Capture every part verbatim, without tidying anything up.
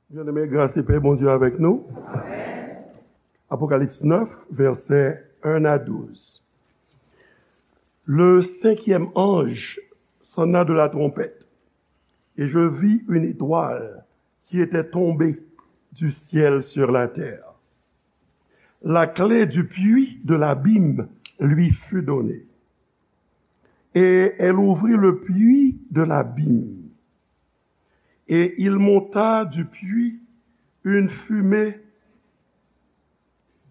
Byeneme, gras e pè Bondye avèk nou. Apocalypse neuf, versets un à douze. Le cinquième ange sonna de la trompette, et je vis une étoile qui était tombée du ciel sur la terre. La clé du puits de l'abîme lui fut donnée. Et elle ouvrit le puits de l'abîme. Et il monta du puits une fumée,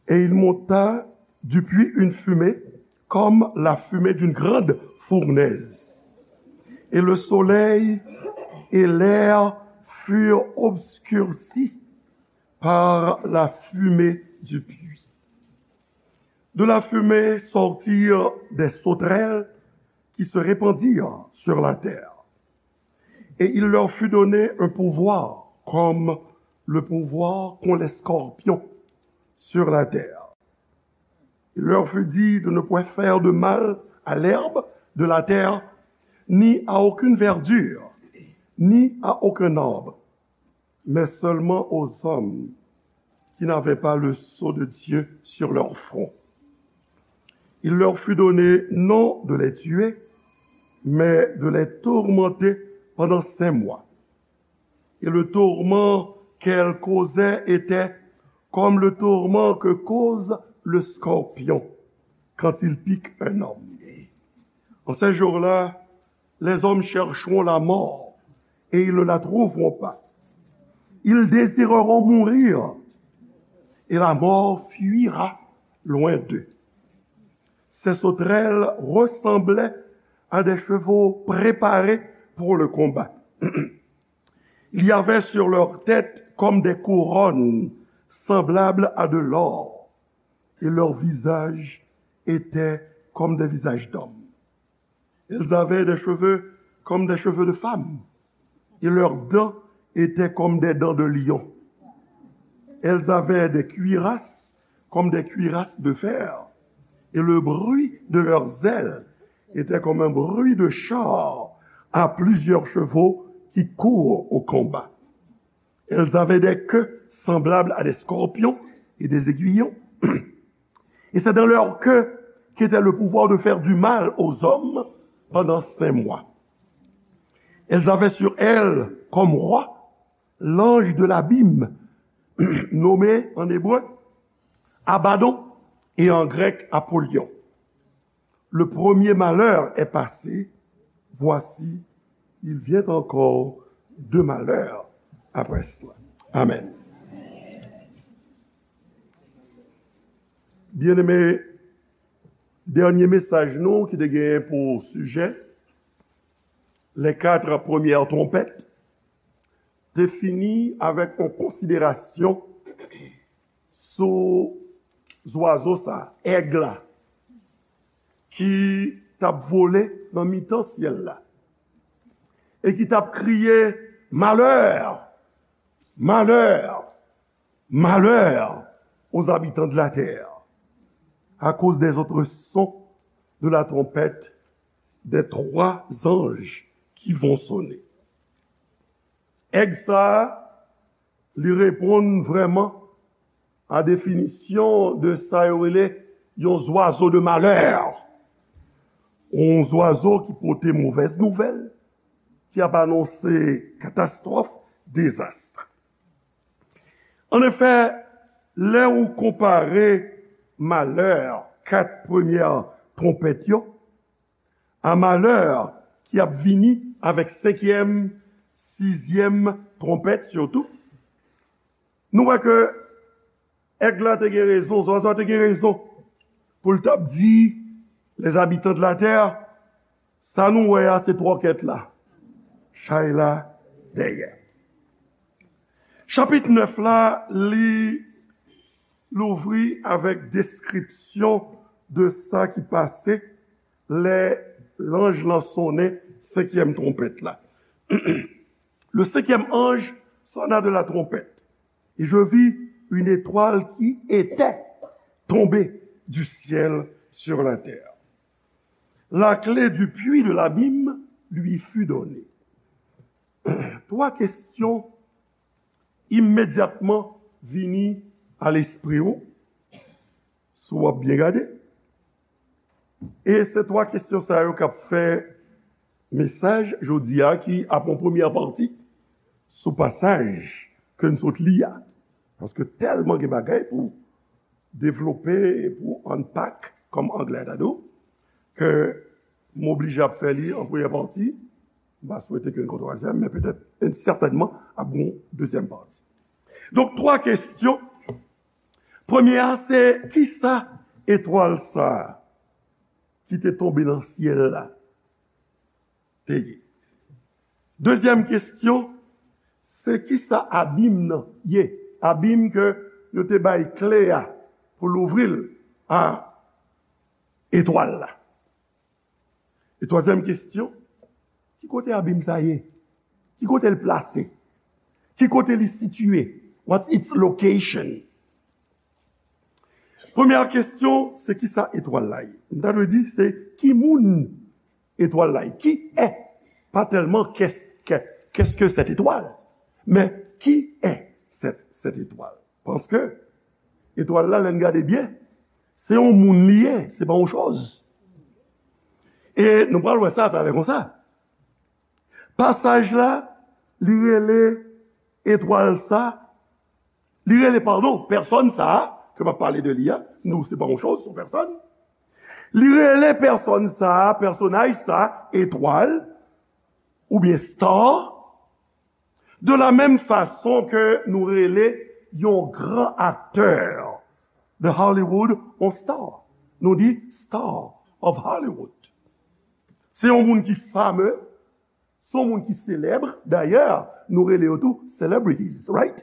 et il monta du puits une fumée comme la fumée d'une grande fournaise. Et le soleil et l'air furent obscurcis par la fumée du puits. De la fumée sortirent des sauterelles qui se répandirent sur la terre. Et il leur fut donné un pouvoir comme le pouvoir qu'ont les scorpions sur la terre. Il leur fut dit de ne point faire de mal à l'herbe de la terre, ni à aucune verdure, ni à aucun arbre, mais seulement aux hommes qui n'avaient pas le sceau de Dieu sur leur front. Il leur fut donné non de les tuer, mais de les tourmenter pendant cinq mois. Et le tourment qu'elle causait était comme le tourment que cause le scorpion quand il pique un homme. En ces jours-là, les hommes chercheront la mort et ils ne la trouveront pas. Ils désireront mourir et la mort fuira loin d'eux. Ces sauterelles ressemblaient à des chevaux préparés pour le combat. Il y avait sur leur tête comme des couronnes semblables à de l'or, et leur visage était comme des visages d'hommes. Elles avaient des cheveux comme des cheveux de femmes, et leurs dents étaient comme des dents de lion. Elles avaient des cuirasses comme des cuirasses de fer, et le bruit de leurs ailes était comme un bruit de char à plusieurs chevaux qui courent au combat. Elles avaient des queues semblables à des scorpions et des aiguillons. Et c'est dans leur queue qu'était le pouvoir de faire du mal aux hommes pendant cinq mois. Elles avaient sur elles comme roi l'ange de l'abîme, nommé en hébreu Abaddon et en grec Apollyon. Le premier malheur est passé, voici, il vient encore deux malheurs après cela. Amen. Byeneme, dènye mesaj nou ki te genyen pou sijè, les quatre premières trompettes, te fini avèk yon konsiderasyon sou zwazo sa, èg la, ki t ap vole nan mitan syèl la, e ki t ap kriye, malheur, malheur, malheur aux habitants de la terre, à cause des autres sons de la trompette des trois anges qui vont sonner. Èg sa a, li reponn vrèman a definisyon de sa yo rele yon zwazo de malè. Yon zwazo ki pote movèz nouvèl, ki ap anonse katastwòf, dezas. Annefè, lè ou konpare malè kat premyè twonpèt yo, a malè ki ap vini avèk senkyèm, sizyèm twonpèt sitou, nou wè ke èg la te gen rezon, zwazo a te gen rezon pou l t ap di les habitants de la terre, sa nou wè a se twòkèt la, chay la dèyè. Chapit nèf la, li louvri avèk deskripsyon de sa ki pase lè lanj lan sonnen senkyèm twonpèt la. Le cinquième ange sonna de la trompette, et je vis une étoile qui était tombée du ciel sur la terre. La clé du puits de l'abîme lui fut donnée. Twa kesyon imedyatman vini a lespri w, si w ap byen gade. E se twa kesyon sa yo k ap fè mesaj jodi a, ki ap yon premyè pati sou pasaj ke n sot li a. Paske tèlman gen bagay pou devlope, pou unpack, kòm anglè ta di w, ke m oblije ap fè li an premyè pati. M pa swete ke n gon twazyèm, men petèt, e sètènman, ap gon dezyèm pati. Donk, twa kesyon. Premye a, se kisa etwal sa a ki te tonbe nan syèl la te ye? Dezyèm kesyon, se kisa abim nan ye? Abim ke yo te bay kle a pou louvri l a etwal la. E twazyèm kesyon, ki kote abim sa ye? Ki kote l plase? Ki kote li sitiye? What's its location? Premyè kesyon, se kisa etwal la ye? M ta dwe di, se ki moun etwal la ye? Qui est? Pas tellement qu'est-ce que, qu'est-ce que cette étoile, mais qui est cette, cette étoile? Paske etwal la, lè n gade byen, se yon moun li ye, se pa yon choz. E nou pral wè sa atalè konsa. Pasaj la, li rele etwal sa, li rele, padon, pèsòn sa a, ke m ap pale de li a, nou, se pa yon choz, se yon pèsòn. Li rele pèsòn sa a, pèsonaj sa a, etwal, oubyen star, de la menm fason ke nou rele yon gran aktè de Hollywood yon star. Nou di star of Hollywood. Se yon moun ki fame, se yon moun ki selèb. Dayè, nou rele yo tou celebrities, right?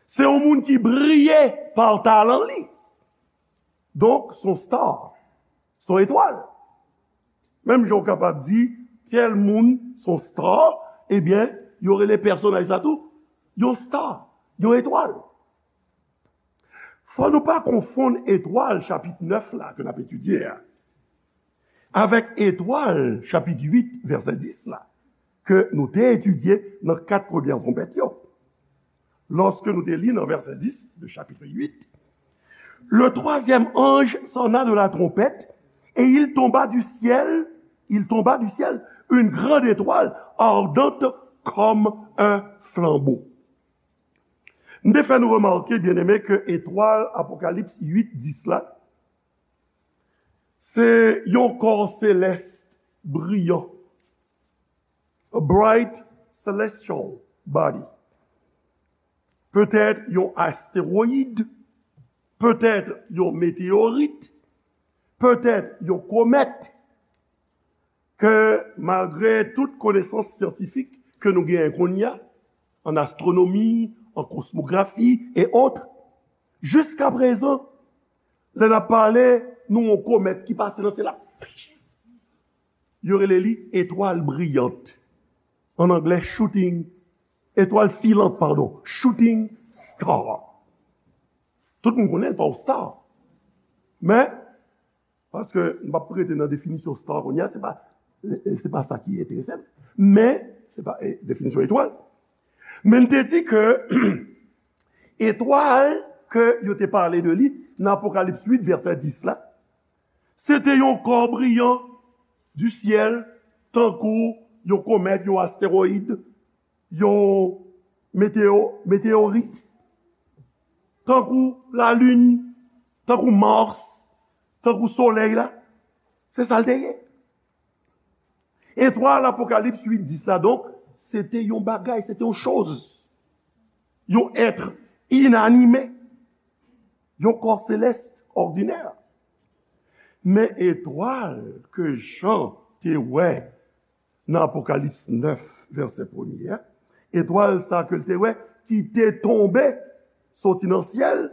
Se yon moun ki briye pa talan li. Donk, se yon star. Se yon etwal. Menm jan w kapab di, tèl moun se yon star, ebyen, yo rele pèsonaj sa tou yon star, yon etwal. Fò nou pa konfonn etwal chapit nèf la ke n ap etidye a avèk etwal chapit uit, vèsè dis la, ke nou te etidye nan kat premyè twonpèt yo. Lorsque nous te lit dans verset dix de chapitre huit, le troisième ange sonna de la trompette, et il tomba du ciel, il tomba du ciel une grande étoile ardente comme un flambeau. M te fè nou remake, byeneme, ke etwal Apokalips uit dis la, se yon kò selès briyan, a bright celestial body. Petèt yon astewoyid, petèt yon meteyorit, petèt yon komèt, ke malgre tout konesans syantifik ke nou genyen kounye a, an astwonomi, an kosmografi, e otre, jiska prezan, lè n ap pale, nou yon komèt ki pase nan syèl la, yo rele li etwal briyant. An anglè, shooting, etwal filant, padon, shooting star. Tout moun konnen l pa yon star. Men, paske m p ap rete nan definisyon star kounye a, se pa, se pa sa ki enterese m. Men, se pa, eh, definisyon etwal. Men n te di ke etwal ke yo te pale de li nan Apokalips uit, vèsè dis la, se te yon kò briyan du ciel, tankou yon komèt, yon astewoyid, yon meteyo-, meteyorit, tankou lalin, tankou Mars, tankou solèy la. Se sa l te ye. Etwal Apokalips uit dis la, donk, se te yon bagay, se te yon choz, yon èt inanime, yon kò selès òdinè. Men etwal ke Jan te wè nan Apokalips nèf, vèsè premye a, etwal sa ke l te wè ki te tonbe soti nan syèl,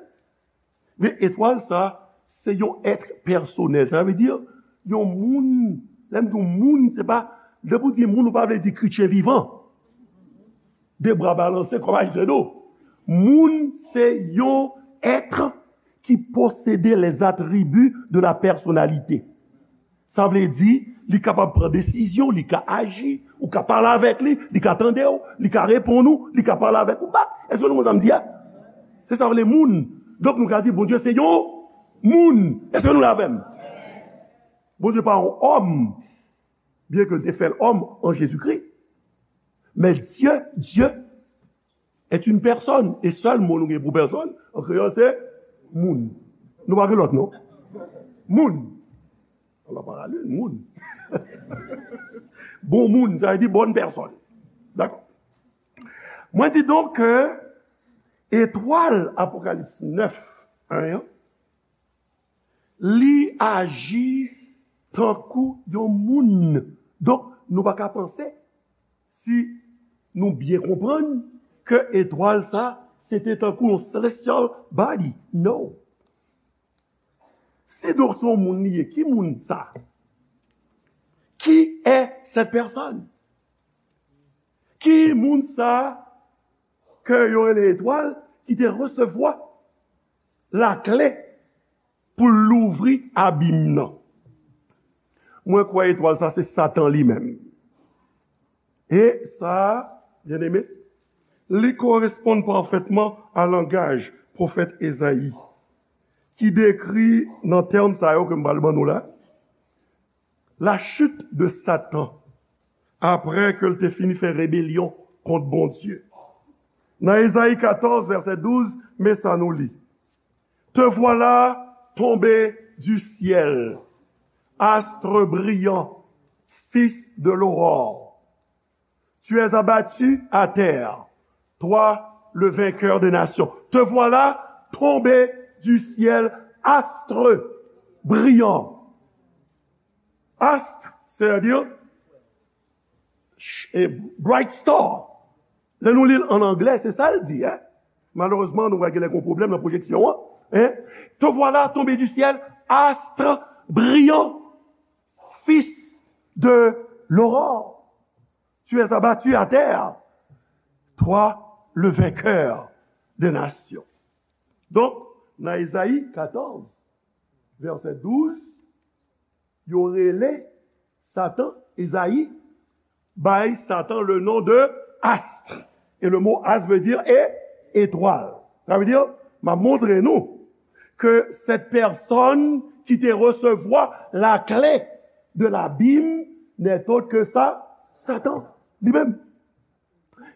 men etwal sa, se yon èt pèsonèl. Sa vle di, yon moun, lè m di yon moun, se pa, lè pou di moun, ou pa vle di kretyen vivan. De bra balanse kòm Ayisyen do. Moun, se yon èt ki posede les attributs de la personnalité. Sa vle di, li kapab pran desizyon, li ka aji, ou ka pale avèk li, li ka tande w, li ka reponn ou, li ka pale avèk ou bak. Èske nou konn sa m di a? Se sa vle moun. Donk nou ka di Bondye se yon moun. Èske nou la avè m? Bondye pa yon òm, byen ke l te fè l òm an Jezikri. Men Dye, Dye est une personne. E sèl mo nou gen pou pèsòn, an kreyòl, se moun. Nou pa gen lòt non. Moun. Ala pa la lin, moun. Bon moun, sa vle di bonne personne. Dakò. Mwen di donk ke etwal Apokalips nèf, en an, li aji tankou yon moun. Donk, nou pa ka panse si nou byen konprann ke etwal sa, se te tankou yon celestial body. No. Si donk se yon moun li ye, ki moun sa? Qui est cette personne? Ki moun sa ke yo rele etwal ki te resevwa lakle pou l louvri abim nan? Mwen kwè etwal sa se Satan li menm. E sa, byeneme, li koresponn pafètman a langaj pwofèt Ezayi, ki dekri nan tèm sa yo ke m pral ban nou la, la chute de Satan, apre ke l te fini fè rebelyon kont Bondye. Nan Ezayi katòz, vèsè douz, men sa nou li. Te voilà tombé du ciel, astre brillant, fils de l'aurore. Tu es abattu à terre, toi le vainqueur des nations. Te voilà tombé du ciel, astre brillant. Astre, c'est-à-dire ch- e bright star. Lè nou li l an anglè, se sa l di, en. Malerezman, nou wè gen lè gen pwoblèm nan pwojeksyon an. En. Te voilà tombé du ciel, astre brillant, fils de l'aurore. Tu es abattu à terre, toi le vainqueur des nations. Donk, nan Ezayi katòz, vèsè douz, yo rele Satan, Ezayi bay Satan le nom de astre. Et le mot astre veut dire é- étoile. Sa vle di, m ap montre nou ke cette personne ki te resevwa la clé de l'abîme n'est autre que sa, Satan li menm.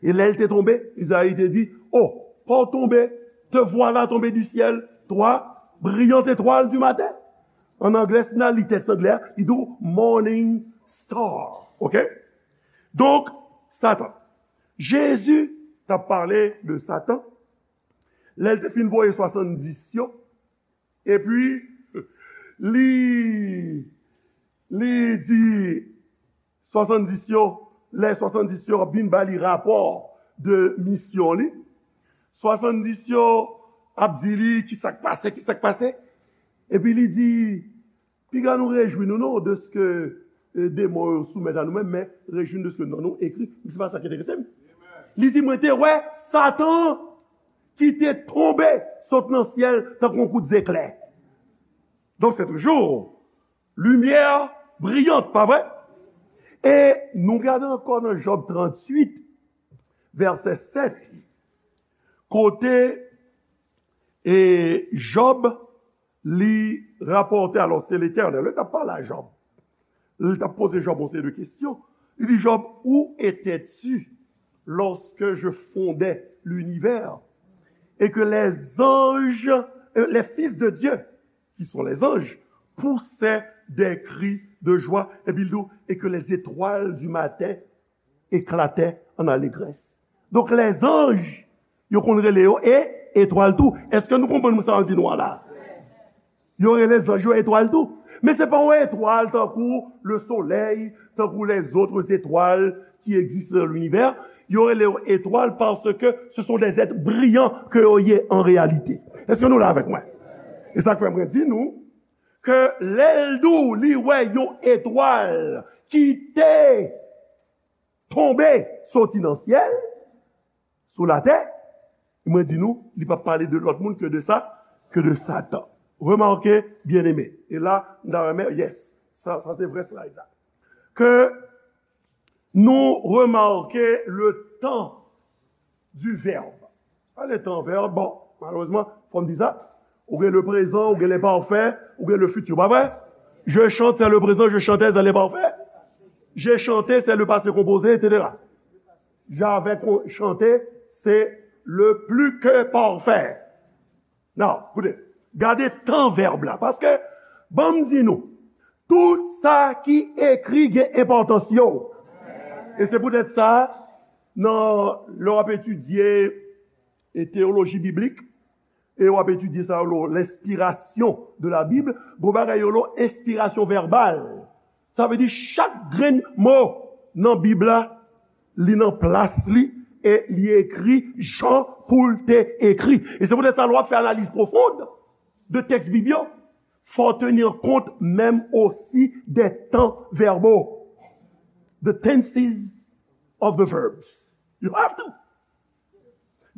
E lè l te tonbe, Izayi te di, oh, pa w tonbe, te voilà tombé du ciel, toi, brillante étoile du matin. An anglè, si n al li tèks anglè a, li di w morning star. Oke? Donk, Satan. Jezi t ap pale de Satan lè l te fin voye swasanndis yo. Epi, li, li di swasanndis yo, lè swasanndis yo ap vin ba li rapò de misyon li, swasanndis yo ap di li ki sa k pase, ki sa k pase. Epi li di, piga nou rejwi nou non, deske, e, demon yo soumèt a nou menm, men rejwi nou deske non nou ekri. Se pa sa ki enterese m. Li di, mwen te wè Satan ki te tonbe sot nan syèl tankou yon kout zeklè. Donk, se toujou limyè briyant, pa vre? E nou gade ankò nan Jòb tranntuit, vèsè sèt, kote, e, Jòb li rapòte, alò, se Letènèl, li t ap pale a Jòb. Li t ap poze Jòb yon seri de kesyon. Li di, Jòb, où étais-tu lorsque je fondais l'univers et que les anges, euh, les fils de Dieu, qui sont les anges, poussaient des cris de joie? Epi l di, et que les étoiles du matin éclataient en allégresse. Donk, lèzanj, yo konn rele yo e etwal tou. Èske nou konprann sa m di nou an la? Yo rele zanj yo etwal tou. Men se pa yon etwal tankou le soleil, tankou les autres étoiles qui existent dans l'univers. Yo rele yo etwal parce que ce sont des êtres brillants que yo ye en réalité. Èske nou la avèk mwen? E sa k fè mwen di nou ke lè l di w li wè yon etwal ki te tonbe soti nan syèl, sou latè, mwen di nou, li p ap pale de lòt moun ke de sa, ke de Satan. Remake, byeneme, e la, m ta renmen, yes, Sa, sa se vrè slide la. Ke nou remake le tan du verbe. Sa le tan verbe, bon, malerezman, fò m di sa. Ou gen le prezan, ou gen le parfè, ou gen le fiti, pa vre? Je chante, c'est le présent, je chantais, c'est le parfè. J'ai chanté, c'est le passé composé, et cetera. J'avais con- chanté, c'est le plus que parfait. Non, koute, gade tan vèb la. Paske, ban m di nou, tout sa ki ekri gen enpòtans yo. E se poutèt sa, nan, lè w ap etidye e teyoloji biblik, e w ap etidye sa yo, l'inspiration de la Bible, gon bagay yo lo enspirasyon vèbal. Sa vle di chak grenn mo nan Bib la, li nan plas li e li ekri jan pou l te ekri. E se poutèt sa, lè w ap fè analiz pwofon de tèks Bib yo, fò w tenir kont menm osi de tan vèbo. The tenses of the verbs. You have to.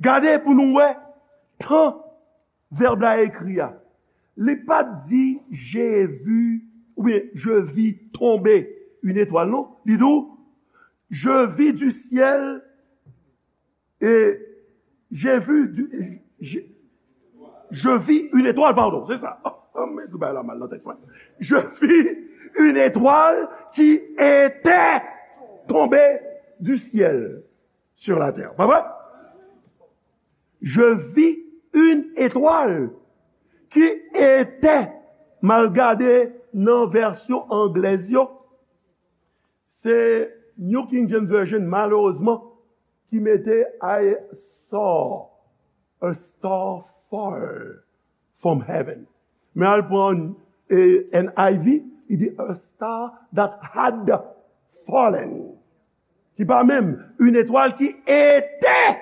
Gade pou nou wè tan vèb la ekri a. Li pa t di, j'ai vu, oubyen, je vis tomber une étoile, non. Li di w, je vis du ciel et j'ai vu du, je, je vis une étoile, pardon, se sa. Oh, oh, men tout bagay la mal nan tèks mwen. Je vis une étoile qui était tombée du ciel sur la terre. Pa vre? Je vis une étoile qui était, m al gade nan vèsyon anglèz yo, se New King James Version, malerezman, ki mete I saw a star fall from heaven. Men al pran, eh, N I V, li di a star that had fallen. Ki pa menm, une étoile qui était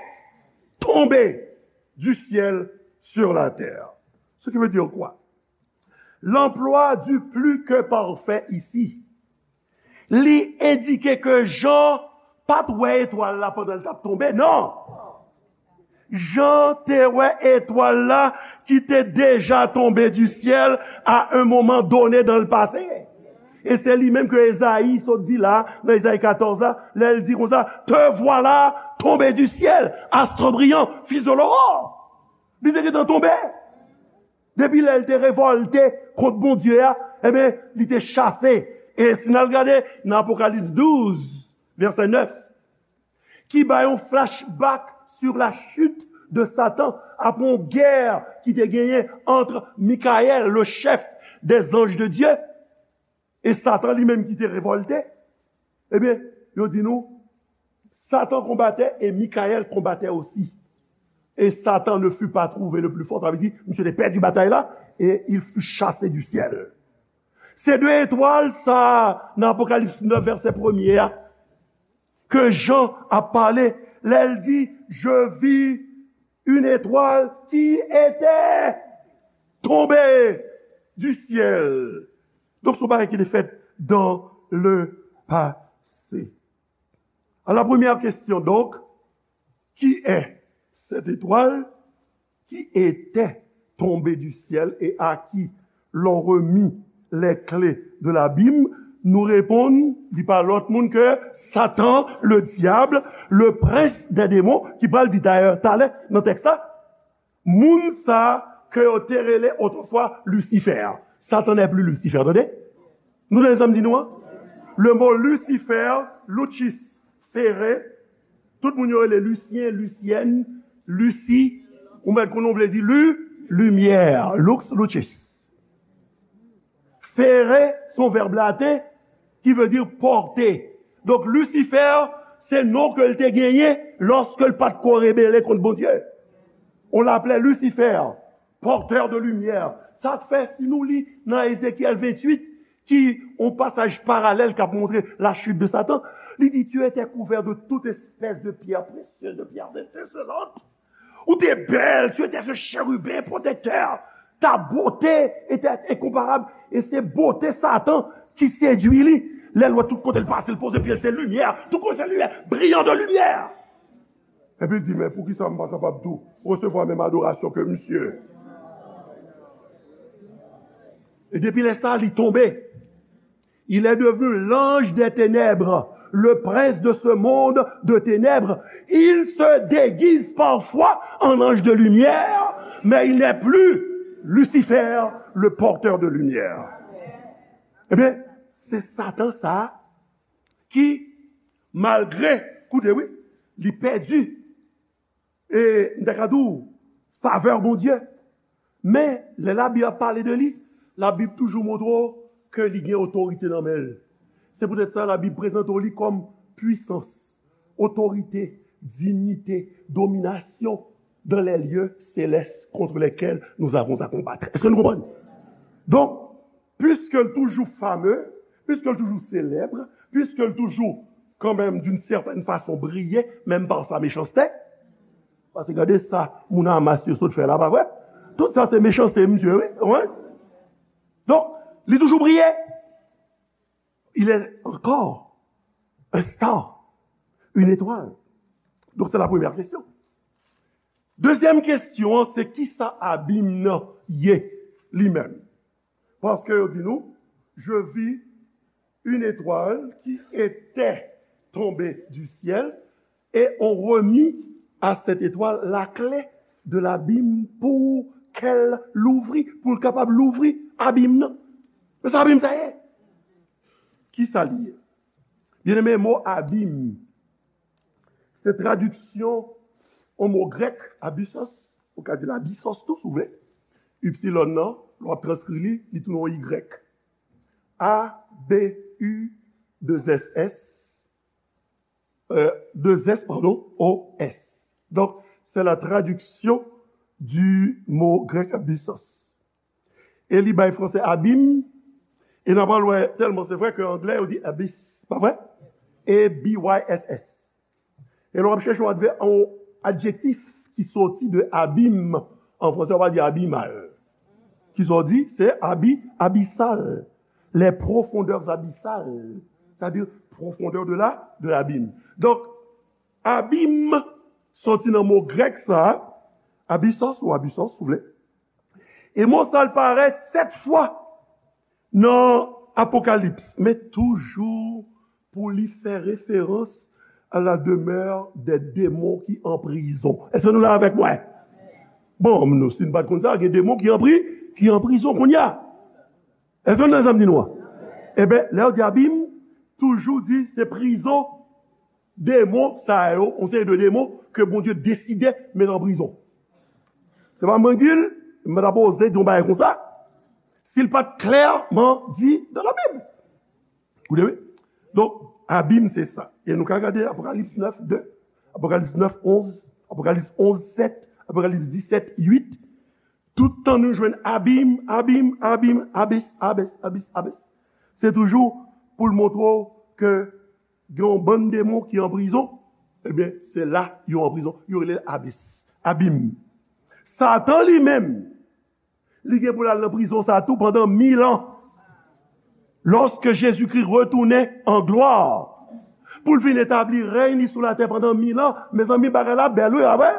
tombée du ciel sur la terre. Ce qui veut dire quoi? L'emploi du plus que parfait ici, li endike ke Jan pa t wè etwal la pandan l t ap tonbe, non. Jan te wè etwal la ki te deja tonbe du ciel à un moment donné dans le passé. E se li menm ke Ezayi sot di la, nan Ezayi katòz la, lè l di konsa, te voilà tombé du ciel, astre brillant, fils de l'aurore. Li te gentan tonbe. Depi lè l te revòlte kont Bondye a, ebyen, li te chase. E si n al gade nan Apokalips douz, vèsè nèf, ki bay yon flashback sur la chute de Satan, apre yon gè ki te genyen ant Mikayèl, le chef des anges de Dieu, e Satan li menm ki te revòlte, ebyen, yo di nou, Satan combattait et Michael combattait aussi. Et Satan ne fut pas trouvé le plus fort. Sa vle di, misye te pèdi batay la, et il fut chassé du ciel. Se de etwal sa, nan Apokalips nèf, vèsè premye a, ke Jan ap pale, lè l di, je vis une étoile qui était tombée du ciel. Donk, se yon bagay ki te fèt dans le passé. Alors, la première question, donc, qui est cette étoile qui était tombée du ciel et à qui l'on remit les clés de l'abîme? Nou reponn, li pa lòt moun ke Satan, le diable, le prince des démons, ki pral di dayè talè nan tèks la, moun sa ke yo te rele otrefwa Lucifer. Satan n'est plus Lucifer, tande? Nou tande sa m di nou an? Le mot Lucifer, Lucis, Fere, tout moun yo rele Lucien, Lucienne, Lucie, ou mèt konnen w vle di lu, limyè, lux, lucis. Fere, se yon vèb laten ki vle di pòte. Donk, Lucifer, se non ke l te genyen lòske l pa t ko rebele kont Bondye. On l'appelait Lucifer, porteur de lumière. Sa k fè, si nou li nan Ezekyèl venntuit, ki yon pasaj paralèl k ap montre la chute de Satan, li di, tu étais couvert de toute espèce de pierres précieuses, de pierres étincelantes. Ou te bèl, tu étais ce chérubin protecteur. Ta beauté était incomparable. E se bote Satan ki sedui li. Lè l wè tout kote l pase, l poze pye l, se limyè. Tout kote se limyè. Brillant de lumière. Epi l di, men poukisa m pa kapab tou resevwa menm adorasyon ke misye? E depi lè sa, li tonbe. Il est devenu l'ange des ténèbres, le prince de ce monde de ténèbres. Il se déguise parfois en ange de lumière, mais il n'est plus Lucifer, le porteur de lumière. Ebyen, se Satan sa a ki, malgre, koute wi, li pèdi, e m ta ka di w, favè Bondye. Men, lè Labib ap pale de li, Labib toujou montre w ke li gen otorite nan men l. Se poutèt sa, Labib prezante w li kòm pwisans, otorite, dinyite, dominasyon dans les lieux célestes contre lesquels nous avons à combattre. Èske nou konprann? Donk, piske l toujou fame, piske l toujou selèb, piske l toujou, kanmenm, d'une certaine façon, briye, menm pa sa mechanste. Paske gade sa moun Hamas yo sot fè la, pa vre? Tout sa se mechanste, misye, wi. Wi. Donk, li toujou briye. Il est encore un star, une étoile. Donc, c'est la première question. Dezyèm kesyon an, se kisa abim nan ye li menm? Paske yo di nou, je vis une étoile qui était tombée du ciel et on remis à cette étoile la clé de l'abîme pour qu'elle l'ouvrit, pou l kapab louvri abim nan. Men sa abim sa ye? Kisa li ye? Byeneme, mo abim, se tradiksyon yon mo grèk, abyssos, ou ka di l abyssos tou, si w vle. Ipsilon nan, lè w ap transkri li, li tounen yon Y. A B U deux S S, euh, deux S, pardon, O S. Donc, c'est la traduction du mot grec abyssos. E li bay franse abim, e n ap al wè, tèlman se vre ke anglè yo di abyss, pa vre? A B Y S S. E lè w ap chèche yon advè-, yon adjektif ki soti de abim, an franse, w ap di abysmal. Kisa w di? Se abi-, abyssal. Les profondeurs abyssales. C'est-à-dire, profondeur de la, de l'abîme. Donk, abim soti nan mo grèk sa, abyssos ou abyssos, si w vle. E mo sa a parèt sèt fwa nan Apokalips, men toujou pou li fè referans à la demeure des démons qui en prison. Èske nou la avèk mwen? Bon, nou, si n pa t konn sa, gen demon ki an pri-, ki an prizon kounye a. Èske nou nan sa m di nou an? Ebyen, lè yo di abim, toujou di se prizon demon sa yo, yon seri de demon ke Bondye deside met an prizon. Se pa mwen k di l, m pa ta poze di yon bagay konsa, si l pa t klèman di dans la Bible. Ou de wi? Donk, abim se sa. E nou ka gade Apokalips nèf de, Apokalips nèf onz, Apokalips onz sèt, Apokalips disèt uit. Tout tan nou jwenn abim, abim, abim, abis, abis, abis, abis. Se toujou pou l montre w ke gen yon bann demon ki an prizon, ebyen, se la yo an prizon. Yo rele l abis, abim. Satan li menm, li gen pou l al nan prizon sa tou pandan mil an. Lòske Jezikri retounen an glwa pou l vin etabli rèy li sou latè pandan mil an, mezanmi, bagay la bèl, wi, pa vre?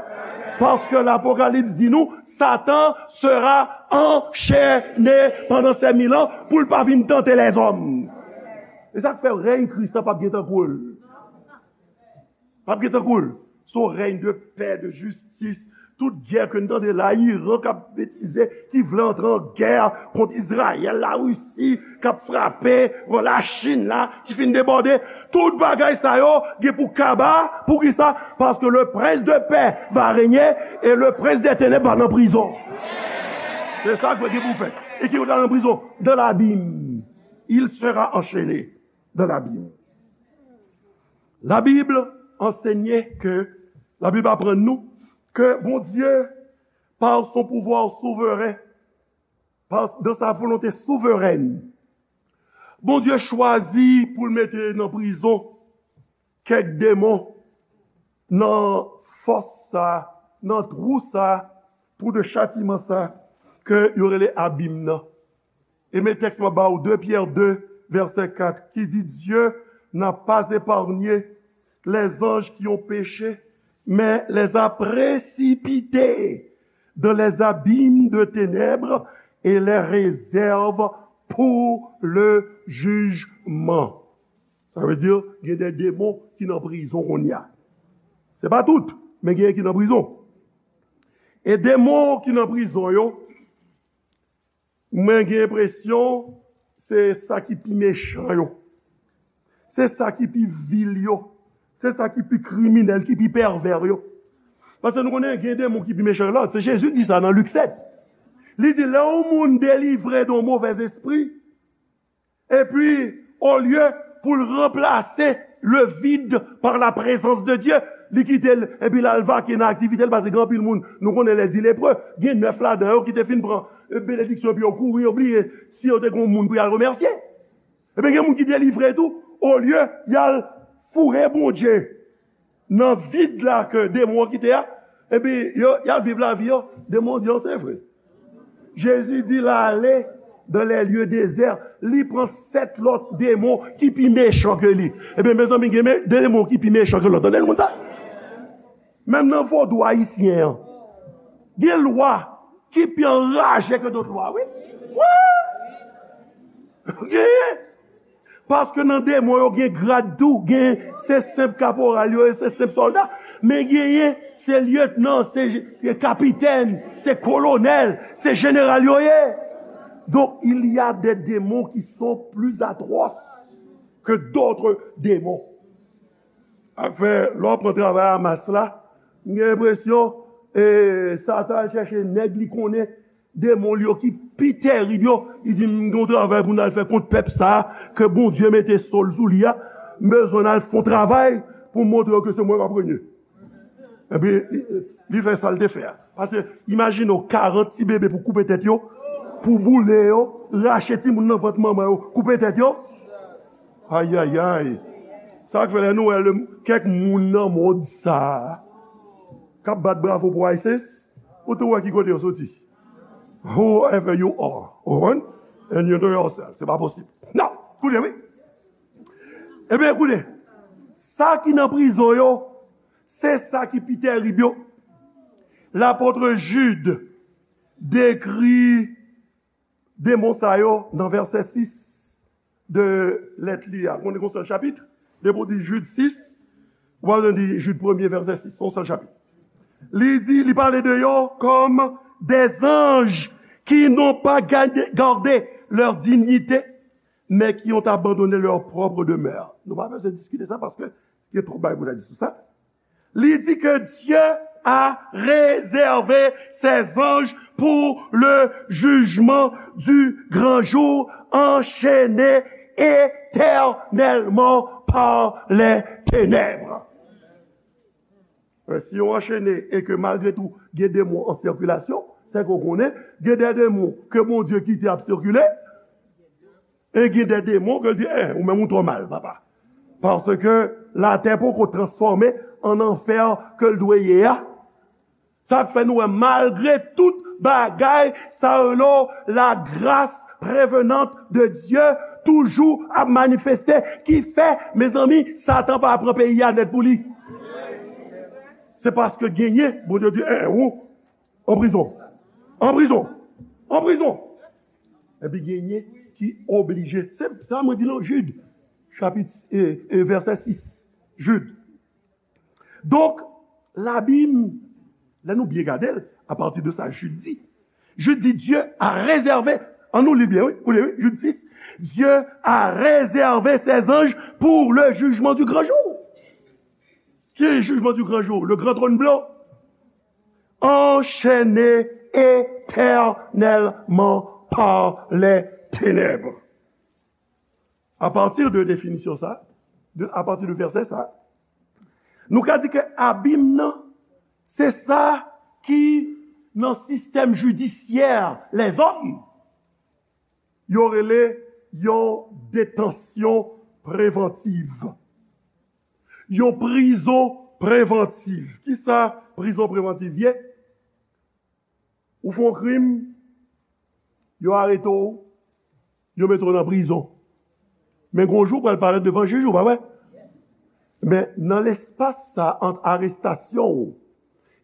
Paske Lapokalips di nou, Satan sera anchene pandan ces mille ans pou l pa vin tante lèzòm. E sa k fè rèy Kris la p ap gen tankou l. P ap gen tankou l. Se yon rèy de pè, de jistis. Tout gè ke n tande la, Iran k ap betize, ki vle antre an gè kont Izrayèl, Larisi k ap frape, bon, Lachin la ki fin debòde. Tout bagay sa yo gen pou kaba. Poukisa? Parce que le prince de paix va régner et le prince des ténèbres va nan prizon. Se sa k gen pou fèt. E ki kote l nan prizon? Dans l'abîme. Il sera enchaîné dans l'abîme. La Bible enseigne que, la Bible apprend nous que Bondye, par son pouvoir souverain, par, dans sa volonté souveraine, Bondye chwazi pou l mete nan prizon kèk demon nan fòs sa, nan twou sa, twou de chatiman sa, ke yo rele abim nan. E men tèks mwen ba w, de Pyè de, vèsè kat, ki di, Dieu n'a pas épargné les anges qui ont péché, mais les a précipités dans les abîmes de ténèbres et les réserve pour le jugement. Sa vle di, gen de demon ki nan prizon kounye a. Se pa tout, men gen ki nan prizon. E demon ki nan prizon yo, mwen gen enpresyon se sa ki pi mechan yo. Se sa ki pi vil yo. Se sa ki pi kriminèl, ki pi pèvè yo. Paske nou konnen gen demon ki pi mechan ke lòt. Se Jezi di sa nan Lik sèt. Li di, lè yon moun delivre de yon movèz espri, epi, olye pou l ranplase le vide par la présence de Dieu, li kite l, epi l al vake nan aktivite l, paske gen anpil moun, nou konnen lè di lepre, gen nèf ladan yo ki te fin pran, e, benediksyon, epi yo kouri, yo bliye si yo te gen yon moun pou y al remèsye. Ebyen, gen moun ki delivre tou, olye y al foure Bondye nan vid la ke demon an kite a, epi yo, y al viv lavi yo, demon an di, "Oh, se vre." Jezi di l ale dans les lieux déserts, li pran sèt lòt demon ki pi mechan ke li. Ebyen, mezanmi, gen me-, demon ki pi mechan ke lòt. Tande moun sa? Menm nan vodou ayisyen an, gen lwa ki pi anraje ke dòt lwa, wi. Wi! Gen! Paske nan demon yo gen grad tou, gen se senp kaporal yo ye, se senp sòlda, men genyen se lyetnan, se kapitèn, se kolonèl, se jeneral yo ye. Donc, il y a des démons qui sont plus atroces que d'autres démons. Afè, lè w pran travay Hamas la, m gen enpresyon, e, Satan al chèche nèg li konnen, demon li yo ki pi terib yo, li di, "M gen yon travay pou n al fè kont pèp sa a, ke Bondye mete sòl sou li a, m bezwen n al fè yon travay pou m montre yo ke se mwen k ap renye." Epi, li, li fè sa l te fè a. Paske, imajine w, karant ti bebe pou koupe tèt yo, pou boule yo, rache timoun nan vant manman yo, koupe tèt yo. Ayayay. Sa k fè lè nou wè le, kèk moun nan mond sa a k ap bat bravo pou ISIS, ou tou wè ki kote yo soti. Whoever you are, ou konprann? And you know yourself. Se pa posib. Non, koute, wi. Ebyen, koute. Sa ki nan prizon yo, se sa ki pi terib yo. Lapot Jid dekri demon sa yo nan vèsè sis de lèt li a. Konnen gon sèl chapit, depi w di Jid sis, ou pa bezwen di Jid premye vèsè sis, se yon sèl chapit. Li di, li pale de yo comme des anges qui n'ont pas gardé, gardé leur dignité, mais qui ont abandonné leur propre demeure. Nou pa bezwen diskite sa paske gen twòp bagay pou ta di sou sa. Li di que Dieu a réservé ses anges pour le jugement du grand jour, enchaînés éternellement par les ténèbres. Men si yo anchene e ke malgre tou gen demon an sikilasyon, se ke w konnen, gen de demon ke Bondye kite ap sikile, e gen de demon ke l di, eh, ou menm ou twò mal, papa. Paske latè poko transfòme an anfè ke l dwe ye a. Sa k fè nou wè, malgre tout bagay, sa rele la grâce prévenante de Dieu toujou ap manifeste, ki fè, mezanmi, Satan pa pran peyi a nèt pou li. Se paske genyen, Bondye di, eh, ou, an prizon. An prizon. An prizon. Epi genyen ki oblije. Se sa mwen di nan Jid, chapit, e, e, vèsè sis. Jid. Donk, Labib, lè nou byen gade l, apati de sa Jid di, Jid di, Dieu a réservé, an nou li byen, wi, koute, wi, Jid sis, Dieu a réservé ses anges pour le jugement du grand jour. Ki jugement du grand jour? Le grand trône blanc. Enchaînés éternellement par les ténèbres. Apati de definisyon sa, de, apati de vèsè sa, nou ka di ke abim nan, se sa ki nan sistèm jidisyè lèzòm, yo rele yon detansyon prevantiv. Yon prizon prevantiv. Kisa prizon prevantiv ye? Ou fè yon krim, yo arete w, yo mete w nan prizon. Men gon jou w pral parèt devan jij ou, pa vre? Men nan lespas sa ant arestasyon w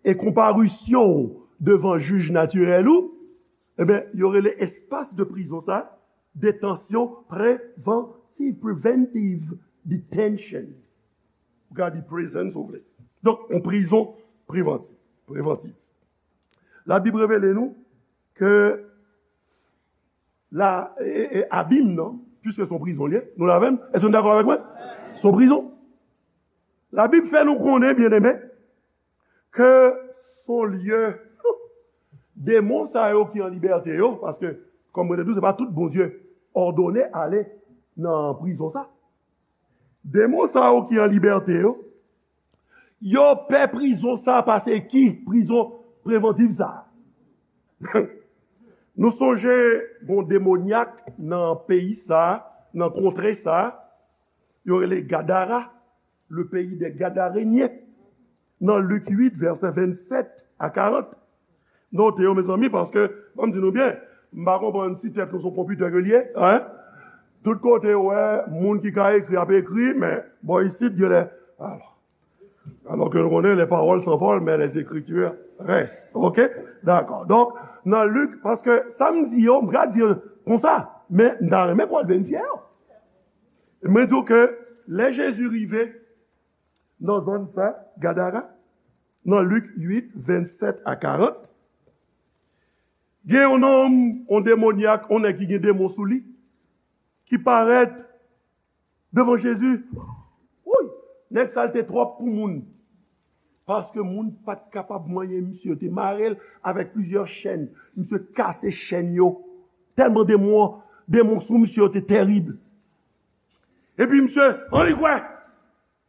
e konparisyon w devan jij natirèl ou, ebyen, yo rele espas de prizon sa, detansyon prevantiv, preventive detention. Ou ka di prison si w vle. Donk, yon prizon prevantiv, prevantiv. Labib revele nou ke la, e, e, abim nan, piske se yon prizon li ye, nou la menm, èske nou dakò avèk mwen? Se yon prizon. Labib fè nou konnen, byeneme, ke se yon lye, demon sa yo ki an libète yo, paske, kòm mwen te di w, se pa tout Bondye òdone ale nan prizon sa. Demon sa yo ki an libète yo, yo pè prizon sa pase ki prizon prevantiv sa. Nou sonje gon demonyak nan peyi sa, nan kontre sa, yo rele Gadara, le pays des Gadaréniens, nan Lik uit, vèsè vennsèt a karant. Note yo, mezanmi, paske, ban m di nou byen, m pa konprann si tèt nou se yon konpitè ke l ye, en? Tout kote, w wè, moun ki ka ekri ap ekri, men bò isit, genlè, alò, alò ke nou konnen, les paroles s'envolent, mais les écritures restent. Oke? Dakò. Donk, nan Lik, paske sa m di yo, m ka di yo konsa, men m ta renmen ke w al verifye yo. Mwen di w ke lè Jezi rive nan zòn sa, Gadara, nan Lik uit, vennsèt a karant, gen yon nonm, yon demonyak, yon nèg ki gen demon sou li, ki parèt devan Jezi. Wouy! Nèg sa l te twòp pou moun. Paske moun pa t kapab manyen misye. Yo te mare l avèk plizyè chèn. Misye kase chèn yo. Tèlman demon an, demon sou misye yo te tèrib. Epi misye, an li kwè,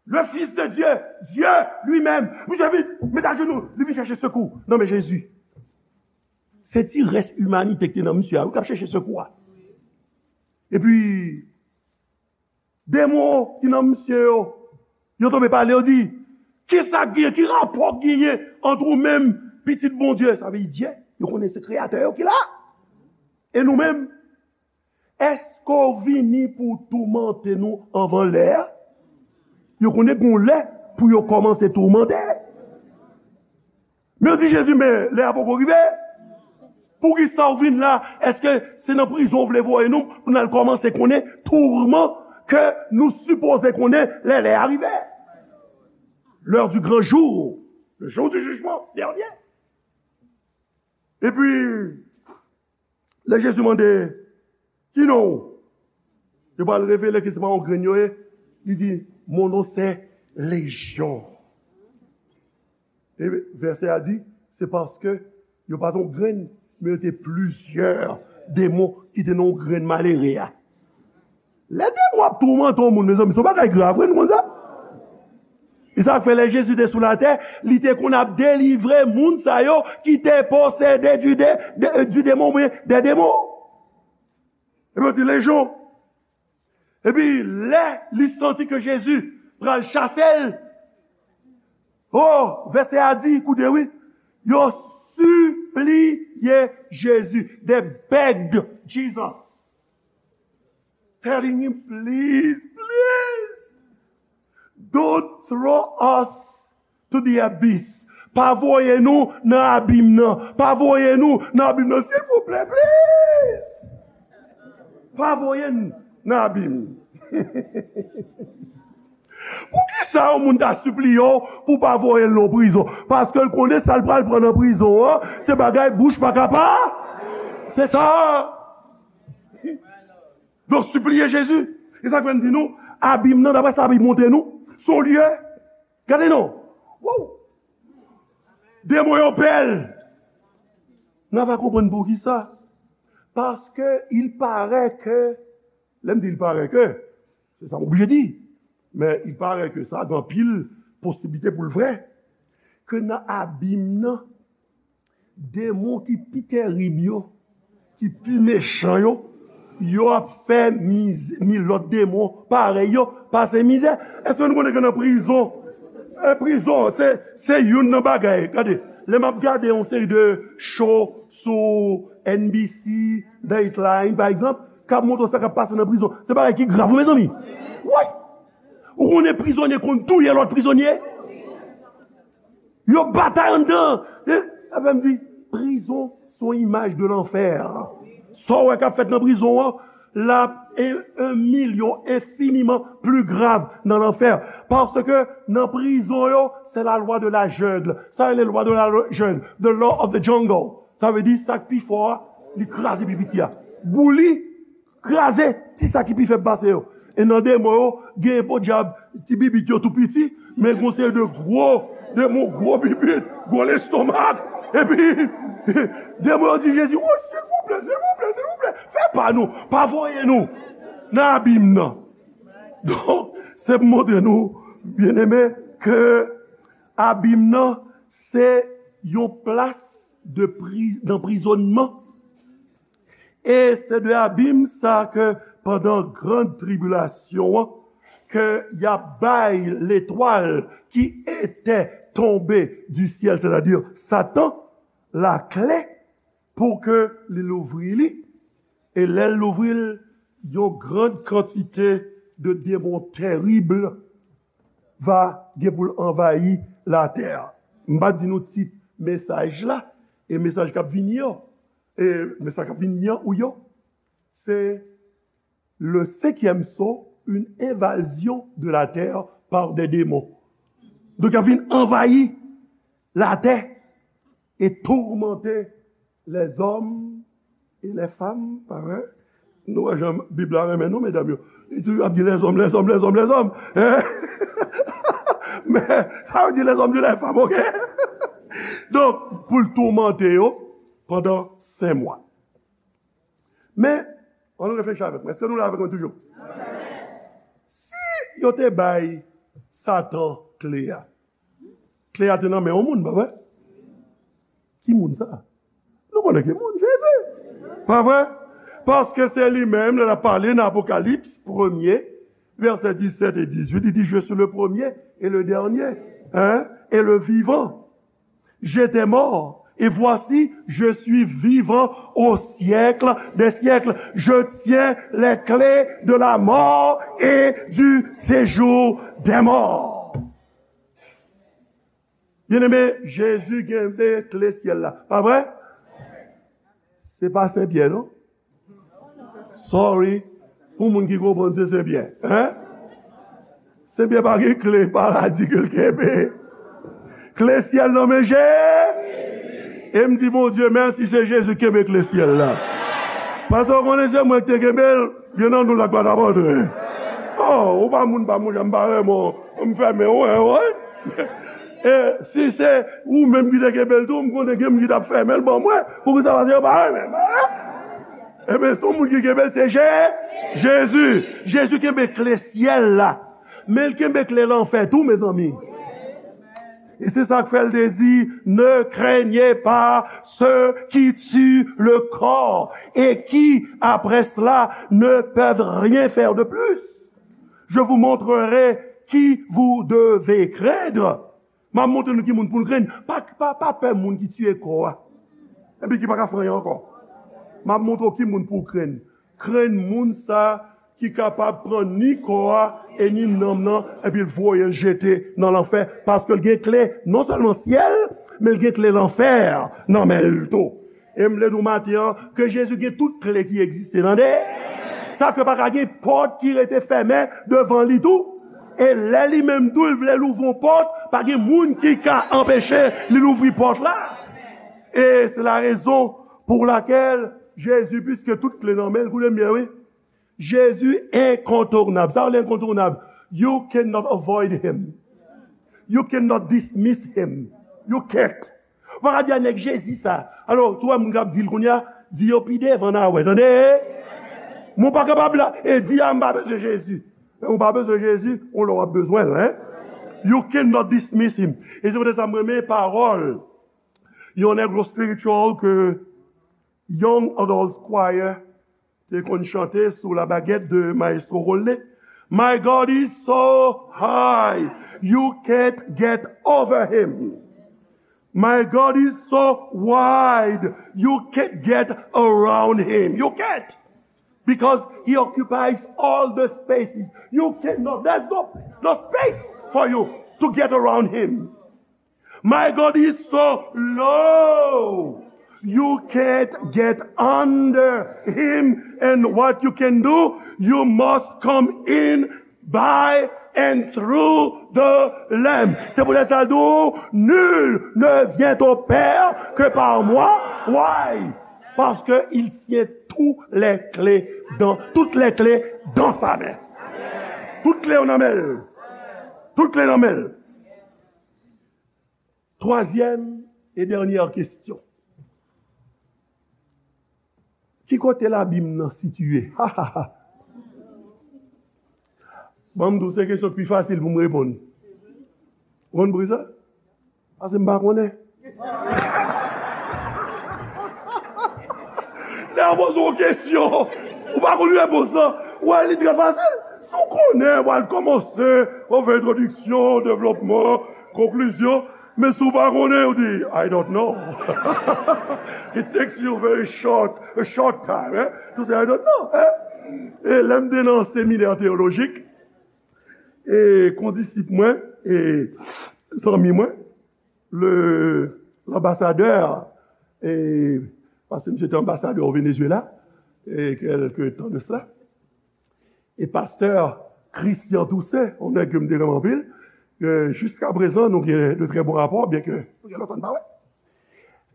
le Fils de Dieu, Dieu lui-même. Misye vin, met ajenou, li vin chèche sekou nan men Jezi. Se ti rès imanite ki te nan misye a, wi, k ap chèche sekou a. Epi, demon ki nan misye yo, yo tonbe pale, yo di, kisa k genyen, ki rapò k genyen ant ou menm, pitit Bondye? Sa vle di Dye, yo konnen se kreyatè yo ki la. E nou menm, èske w vini pou w toumante nou anvan lè a? Yo konnen gon lè pou yo kòmanse toumante. Men yo di Jezi, men lè a poko rive. Poukisa w vin la? Èske se nan prizon w vle voye nou pou n al kòmanse konnen tourman ke nou sipoze konnen lè lè a rive? L'heure du grand jour, le jour du jugement dernier. Epi, lè Jezi mande, ki non w? Yo pral revele ke se pa yon grenn yo ye. Li di, mon nom c'est Légion. E vèsè a di, se paske yo pa t yon grenn, men yo te plizyè demon ki te nan yon grenn malere a. Lè demon ap toumante yon moun, mezanmi, se yon bagay grav, wi, nou konn sa? E sa k fè lè Jezi te sou latè, li te konn ap delivre moun sa yo ki te posede du, de, de, du démon, oubyen des démons. Epi yo di, Légion. Epi lè li santi ke Jezi pral chase l, oh, vèsè a di, koute wi, yo sipliye Jezi. They begged Jesus, telling him, please, please, don't throw us to the abyss. Pa voye nou nan abim nan. Pa voye nou nan abim nan, silvouplè, please. Pa voye n nan abim. Poukisa yon moun ta sipliye w pou w pa voye l nan prizon? Paske l konnen sa l pral pran nan prizon an, se bagay bouch pa ka pa. Se sa. Donk, sipliye Jezi. E sa k fè m di nou, abim nan, daprè sa Bib montre nou, se yon lye. Gade non. Wow! Demon yo pè l. Nou va konprann poukisa. Paske il paraît que, lè m di il paraît que, se sa m oblije di. Men il paraît que sa gen anpil posiblite pou l vrè. Ke nan abim nan, demon ki pi tèrib yo, ki pi mechan yo, yo ap fè miz-, mi lòt demon parèy yo pase mizè. Èske nou konnen ke nan prizon, e, prizon, se, se youn nan bagay. Gade, lè m ap gade yon seri de show sou N B C, Dateline, pa egzanp, k ap montre w sa k ap pase nan prizon, se bagay ki grav, wi, mezanmi. Wi! Ou konnen prizonye konn touye lòt prizonye? Yo batay anndan. E, sa fè m di, prizon se yon imaj de lanfè. Sa w wè k ap fèt nan prizon an, L ap en, en milyon enfiniman pli grav nan lanfè. Paske nan prizon yo, se la loi de la jungle. Sa rele lwa de la jungle, the law of the jungle. Sa vle di sa k pi fò a, li kraze pi piti a. Bouli, kraze ti sa ki pi fèb pase yo. E nan demon yo, gen podyab ti bibit yo tou piti, men gon seri de gwo demon, gwo bibit, gwo lestomak. Epi, demon yo di Jezi, "Oh, silvouplè, silvouplè, silvouplè, fè pa nou, pa voye nou nan abim nan." Donk, se pou montre nou, byeneme, ke abim nan, se yon plas de pri, d'anprizonnman. E se de abim sa ke pandan gran tribilasyon an, ke y ap bay letwal ki ete tonbe di syèl, sètadi Satan, lakle pou ke li louvri li. E lè l louvri l, yon gran kantite de demon terib va gen pou l anvayi latè a. M pa di nou tit mesaj la, e mesaj k ap vini an, e mesaj k ap vini an ou yo, se le cinquième sceau, une invasion de la terre par des démons. Donk, y ap vin anvayi latè e toumante les hommes et les femmes, pa vre? Nou wè jan Bib la renmen nou, medam yo. Li toujou ap di les hommes, les hommes, les hommes, les hommes. Hein? Men, sa vle di les hommes et les femmes, ok? Donk, pou l toumante yo pandan senk mwa. Men, ann nou reflechi avèk mwen. Èske nou la avèk mwen toujou? Si yo te bay Satan kle a, kle a te nan men yon moun, pa vre? Ki moun sa? Nou konnen ki moun, Jezi. Pa vre? Paske se li menm, lè l ap pale nan Apokalips premye, vèsè disèt e dizuit, li di, "Je suis le premier et le dernier, hein, et le vivant. J'étais mort, et voici, je suis vivant au siècle des siècles. Je tiens les clés de la mort et du séjour des morts." Byeneme, Jezi kenbe kle syèl la. Pa vre? Se pa Sen Pyè, non? Sorry. Pou moun ki konprann, se Sen Pyè. Hein? Sen Pyè pa gen kle paradi ke l kenbe. Kle syèl nan men Je-, e m di Bondye mèsi, se Jezi ki kenbe kle syèl la. Paske w konnen se mwen ki te kenbe l, gen nan nou la k pa t ap antre. Oh, ou pa moun pa m, ou janm pa renmen w, m fèmen w, wè, wè. E si se ou menm ki te kenbe l tou, m konnen gen moun ki t ap fèmen l ban mwen. Poukisa? Paske yo pa renmen m. Enben, se yon moun ki kenbe l, se Je-, Jezi. Jezi kenbe kle syèl la. Men l kenbe kle lanfè tou, mezanmi. E se sa k fè l te di, "Ne craignez pas ceux qui tuent le corps et qui, après cela, ne peuvent rien faire de plus. Je vous montrerai qui vous devez craindre." M ap montre nou ki moun pou n krenn. Pa, pa, pa pè moun ki tiye kò a, epi ki pa ka fè anyen ankò. M ap montre w ki moun pou w krenn. Krenn moun sa ki kapab pran ni kò a e ni nanm nan, epi l voye l jete nan lanfè, paske l gen kle non sèlman syèl, men l gen kle lanfè nan men l tou. E m vle di w maten an ke Jezi gen tout kle ki egziste, tande? Sa fè pa ka gen pòt ki rete fèmen devan li tou. E lè li menm tou, l vle louvri yon pòt, pa gen moun ki ka anpeche li louvri pòt la. E se la rezon pou lakèl Jezi, piske tout kle nan men l, koute m byen, wi. Jezi enkontounab. Sa vle enkontounab? You cannot avoid him. You cannot dismiss him. You can't. Ou pa ka di a nèg Jezi sa. Alò, si w wè moun k ap di l kounye a, di yo pi devan n a wè, tande? Men w pa kapab la, e di a m pa bezwen Jezi. Men ou pa bezwen Jezi, yon lè w ap bezwen l, hein? You cannot dismiss him. E se poutèt sa m renmen pawòl yon negro spiritual ke Young Adults Choir te konn chante sou la baguette de Maestro Rolne. "My God is so high, you can't get over him. My God is so wide, you can't get around him." You can't. Because he occupies all the spaces. You cannot, there's no, no space for you to get around him. "My God is so low, You can't get under him, and what you can do, you must come in by and through the Lamb. C'est pour ça, nous, nul ne vient au Père que par moi. Why? Parce que il tient tous les clés dans, toutes les clés dans sa main. Tout kle yo nan men l. Tout kle nan men l. Twazyèm e dènyè kesyon. Ki kote labim nan sitiye? Ban m di w, se kesyon ki pi fasil pou m reponn. Ou konn poukisa? Paske m pa konnen. Lè yo poze w kesyon, ou pa konn repons lan, ou wè li trè fasil. Si w konnen, w al kòmanse, ou fè entwodiksyon, devlopman, konklizyon. Men si w pa konnen, ou di, "I don't know." It takes you very short, a short time, eh? To say, "I don't know," eh? E lè m te nan seminè teyolojik, e kondisip mwen, e zanmi mwen, le, l'ambassadeur, e, paske misye te anbasadè o Venezuela, e kèlke tan de sa. E pastè Christian Toussaint, yon nèg ke m te renmen anpil, ke jiska prezan nou gen de trè bon rapò, byen ke nou gen lontan n pa wè.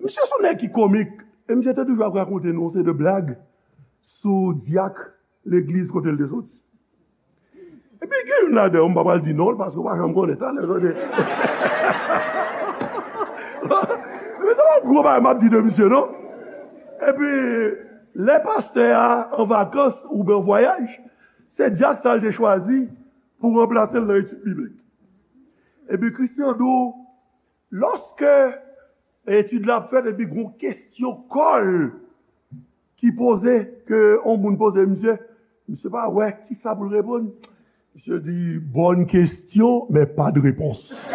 Misye se yon nèg ki komik, e misye te toujou ap rakonte nou yon seri de blag sou dyak legliz kote l te soti. Epi gen youn ladan yo, m pa pral di non l, paske w pa janm konnen, talè, tande. Men se pa yon gwo bagay m ap di de misye, non. Epi, lè pastè a an vakans oubyen an vwayaj, se dyak sa l te chwazi pou ranplase l nan etid biblik. Epi Christian di w, lòske etid la ap fèt, epi gon kesyon kòl ki poze, ke yon moun poze misye, misye pa wè kisa pou l reponn. Misye di, "Bonne question, mais pas de réponse."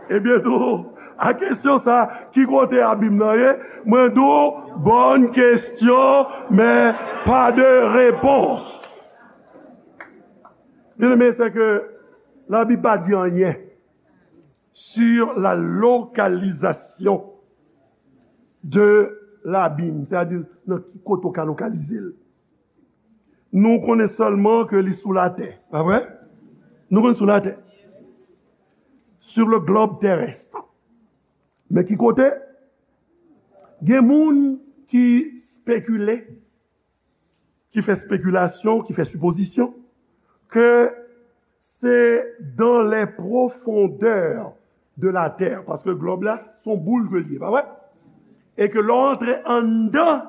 Ebyen tou, a kesyon sa, ki kote abim nan ye? Mwen di w, "Bonne question, mais pas de réponse." Byeneme, se ke Labib pa di anyen sur la localisation de labim, sètadi nan ki kote w ka lokalize l. Nou konnen sèlman ke li sou latè, pa vre? Nou konnen sou latè. Sur le globe terrestre. Men ki kote? Gen moun ki spekile, ki fè spekilasyon, ki fè sipozisyon, ke se dans les profondeurs de la terre, paske glòb la, se yon boul ke l ye, pa vre? E ke lè w antre anndan,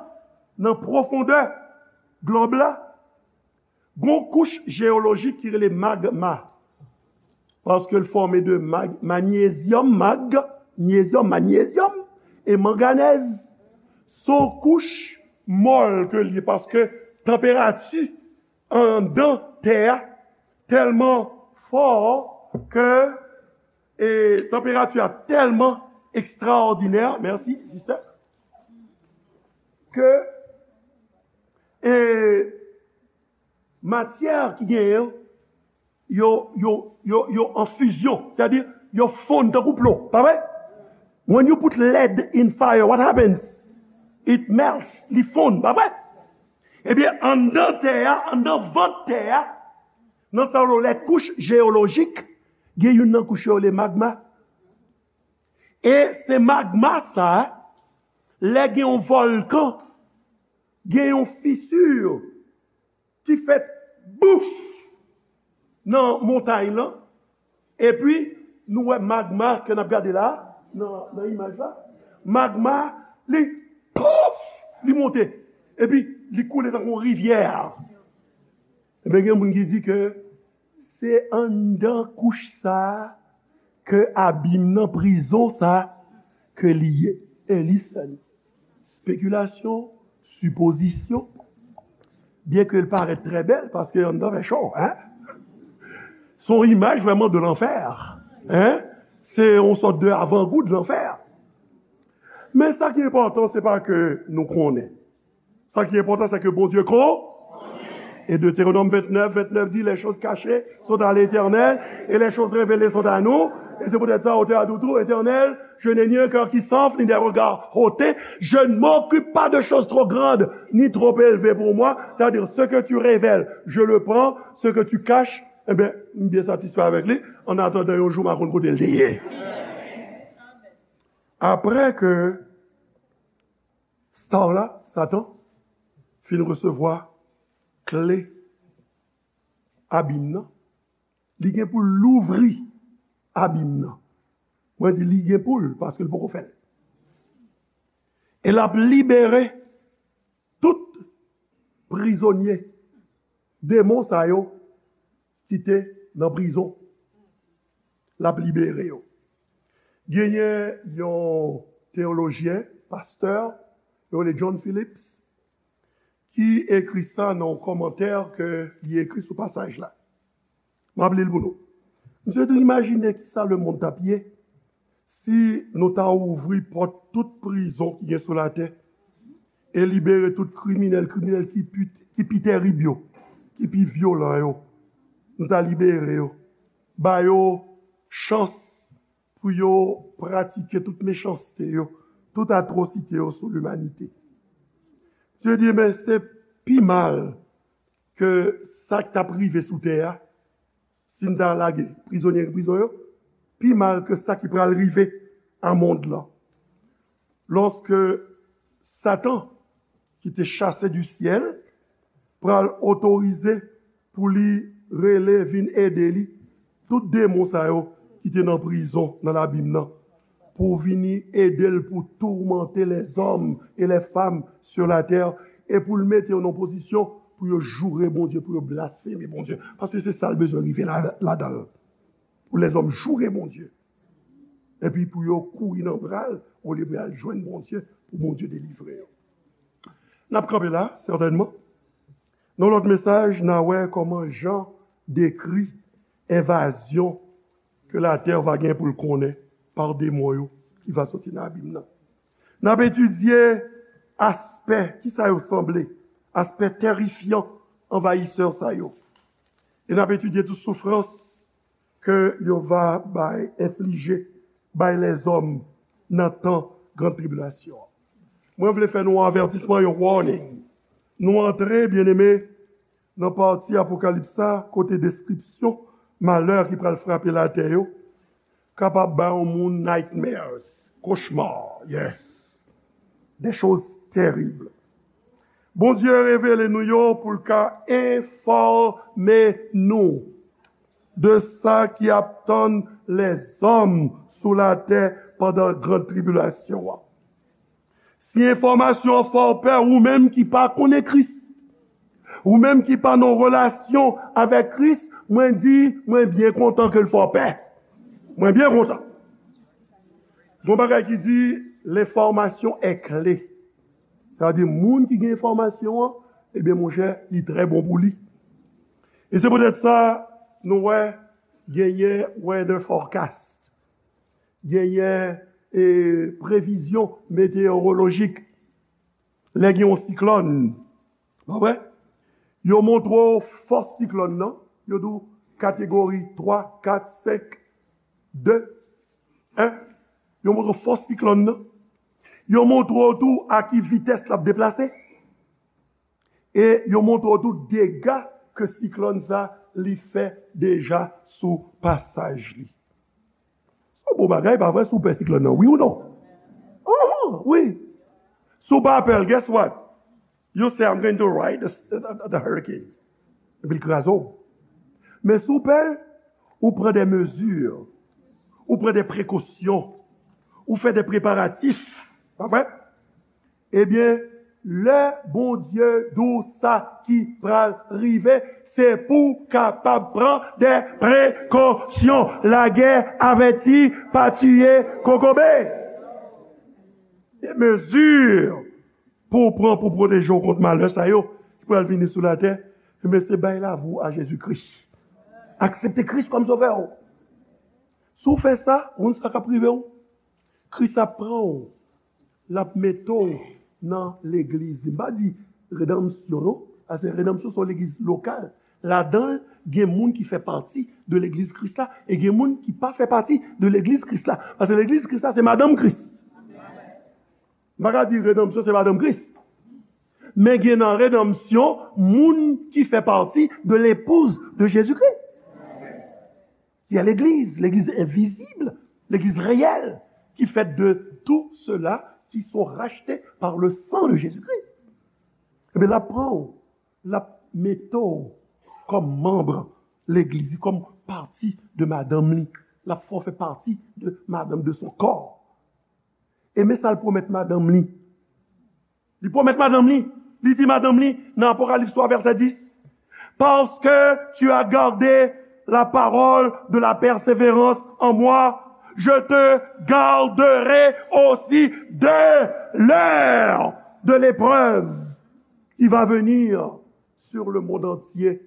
nan pwofondè glòb la, gon kouch jeyolojik ki rele magma. Paske l fòme de mag, manyezyòm, mag, nyezyòm, manyezyòm, e manganèz. Se yon kouch mòl ke l ye, paske tanperati anndan tè a tèlman fò ke, e, tanperati a tèlman ekstraòdinè, mèsi, sistè, ke, e, matyè ki genyen yo, yo, yo, yo, yo an fizyon, sètadi yo fonn tankou plo, pa vre? When you put lead in fire, what happens? It melts, li fonn, pa vre? Ebyen, anndan tè a, anndan vant tè a, nan sa yo rele kouch jeyolojik, gen youn nan kouch yo rele magma. E se magma sa, lè gen yon vòlkan, gen yon fisi ki fèt, bouf, nan montay lan, epi nou wè magma ke n ap gade la, nan, nan imaj la, magma, li, pouf, li monte, epi li koule tankou yon rivyè. Ebyen, gen moun ki di ke se anndan kouch sa a ke abim nan, prizon sa a ke li ye. And listen, spekilasyon, sipozisyon, byen ke l parèt trè bèl, paske anndan fè cho, en? Se yon imaj vrèman de lanfè, en? Se yon sòt de avangou de lanfè. Men sa ki enpòtan, se pa ke nou konnen. Sa ki enpòtan, se ke Bondye ko-, Et Deutéronome vingt-neuf, vingt-neuf dit, les choses cachées sont à l'Éternel et les choses révélées sont à nous. Et c'est peut-être ça, auteur a dit tout, Éternel, je n'ai ni un cœur qui s'enfle, ni des regards hautain. Je ne m'occupe pas de choses trop grandes ni trop élevées pour moi. C'est-à-dire, ce que tu révèles, je le prends. Ce que tu caches, eh bien, je suis bien satisfait avec lui. En attendant, un jour, ma konn kote l te ye. Apre ke star la, Satan, fin resevwa kle abim nan, li gen pou l louvri abim nan. Mwen di li gen pou l, paske l poko fè l. E l ap libere tout prizonye, demon sa yo ki te nan prizon. L ap libere yo. Genyen yon teyolojyen, pastè, yo rele John Phillips, ki ekri sa nan yon kòmantè ke li ekri sou pasaj la. M ap li l pou nou. Misye di, imajine kisa lemonn t ap ye si nou ta ouvri pòt tout prizon ki gen sou latè e libere tout kriminèl, kriminèl ki pi, ki pi terib yo, ki pi vyolan yo. Nou ta libere yo, ba yo chans pou yo pratike tout mechanste yo, tout atwosite yo sou limanite. Misye di, men se pi mal ke sa k t ap rive sou tè a, si n ta lage prizonye nan prizon yo, pi mal ke sa ki pral rive a mond lan. Lòske Satan, ki te chase du syèl, pral otorize pou li rele vin ede li tout demon sa yo ki te nan prizon, nan labim nan, pou vini ede l pou tourmenter les hommes et les femmes sur la terre, e pou l mete yo nan pozisyon pou yo joure Bondye, pou yo blasfeme Bondye. Paske se sa l bezwen rive la, ladan l. Pou lèzòm joure Bondye. Epi pou yo kouri nan bra l, olye pou y al jwenn Bondye, pou Bondye delivre yo. N ap kanpe la, sètènman. Nan lòt mesaj, n a wè kòman Jan dekri envazyon ke latè va gen pou l konnen pa demon yo ki va soti nan abim nan. N ap etidye aspè, kisa yo sanble, aspè terifyan, anvayisè sa yo. E n ap etidye tou soufrans ke yo va bay, enflije, bay lèzòm nan tan gran tribilasyon an. Mwen vle fè nou yon avètisman, yon warning. Nou antre, byeneme, nan pati Apokalips sa, kote deskripsyon malè ki pral frape latè yo kapab bay yon moun nightmares, cauchemar, yes. Des choses terribles. Bondye revele nou yo pou l ka enfòme nou de sa ki ap tann lèzòm sou latè pandan gran tribilasyon an. Si enfòmasyon an fè w pè, ou menm ki pa konnen Kris, ou menm ki pa nan relasyon avèk Kris, mwen di, mwen byen kontan ke l fè w pè. Mwen byen kontan. Gon bagay ki di, l'information est clé. Sa vle di, moun ki gen enfòmasyon an, ebyen, monchè, li trè bon pou li. E se poutèt sa, nou wè, genyen weather forecast, genyen, e, previzyon meteyowolojik. Lè gen yon siklòn, pa vre? Yo montre w fòs siklòn nan, yo di w kategori twa, kat, senk, de, en. Yo montre w fòs siklòn nan. Yo montre w tou a ki vitès l ap deplase. E yo montre w tou dega ke siklòn sa li fè deja sou pasaj li. Se yon bon bagay, pa vre, si w pè siklòn nan, wi ou non? Oho, wi. Si w pa pè l, guess what? You say, "I'm going to ride the, the, the hurricane." Epi l kraze w. Men si w pè l, ou pran de mezi, ou pran de prekosyon, ou fè de preparatif, pa vre? Ebyen, lè Bondye di w sa ki pral rive, se pou w kapab pran de prekosyon. Lagè avèti, pa tiye kokobe. De mezi pou w pran pou pwoteje w kont malè sa yo ki pral vini sou latè, ebyen, se bay lavi w a Jezi Kris. Aksepte Kris kòm sovè w. Si w fè sa, ou konn sa k ap rive w? Kris ap pran w, l ap mete w nan legliz li. M pa di redanmsyon, non. Paske redanmsyon se yon legliz lokal. Ladan l, gen moun ki fè pati de legliz Kris la, e gen moun ki pa fè pati de legliz Kris la. Paske legliz Kris la, se madanm Kris. M pa ka di redanmsyon, se madanm Kris. Men gen nan redanmsyon, moun ki fè pati de l'épouse de Jésus-Christ. Il y a l'église, l'église invisible, l'église réelle, qui fait de tous ceux-là qui sont rachetés par le sang de Jésus-Christ. Ebyen, l ap pran w, l ap mete w kòm manm legliz, kòm pati de madanm li. L ap fè w fè pati de madanm, de son corps. E men sa l pwomèt madanm li. Li pwomèt madanm li. Li di madanm li nan Apokalis twa vèsè dis, Parce que tu as gardé la parole de la persévérance en moi, je te garderai aussi de l'heure de l'épreuve qui va venir sur le monde entier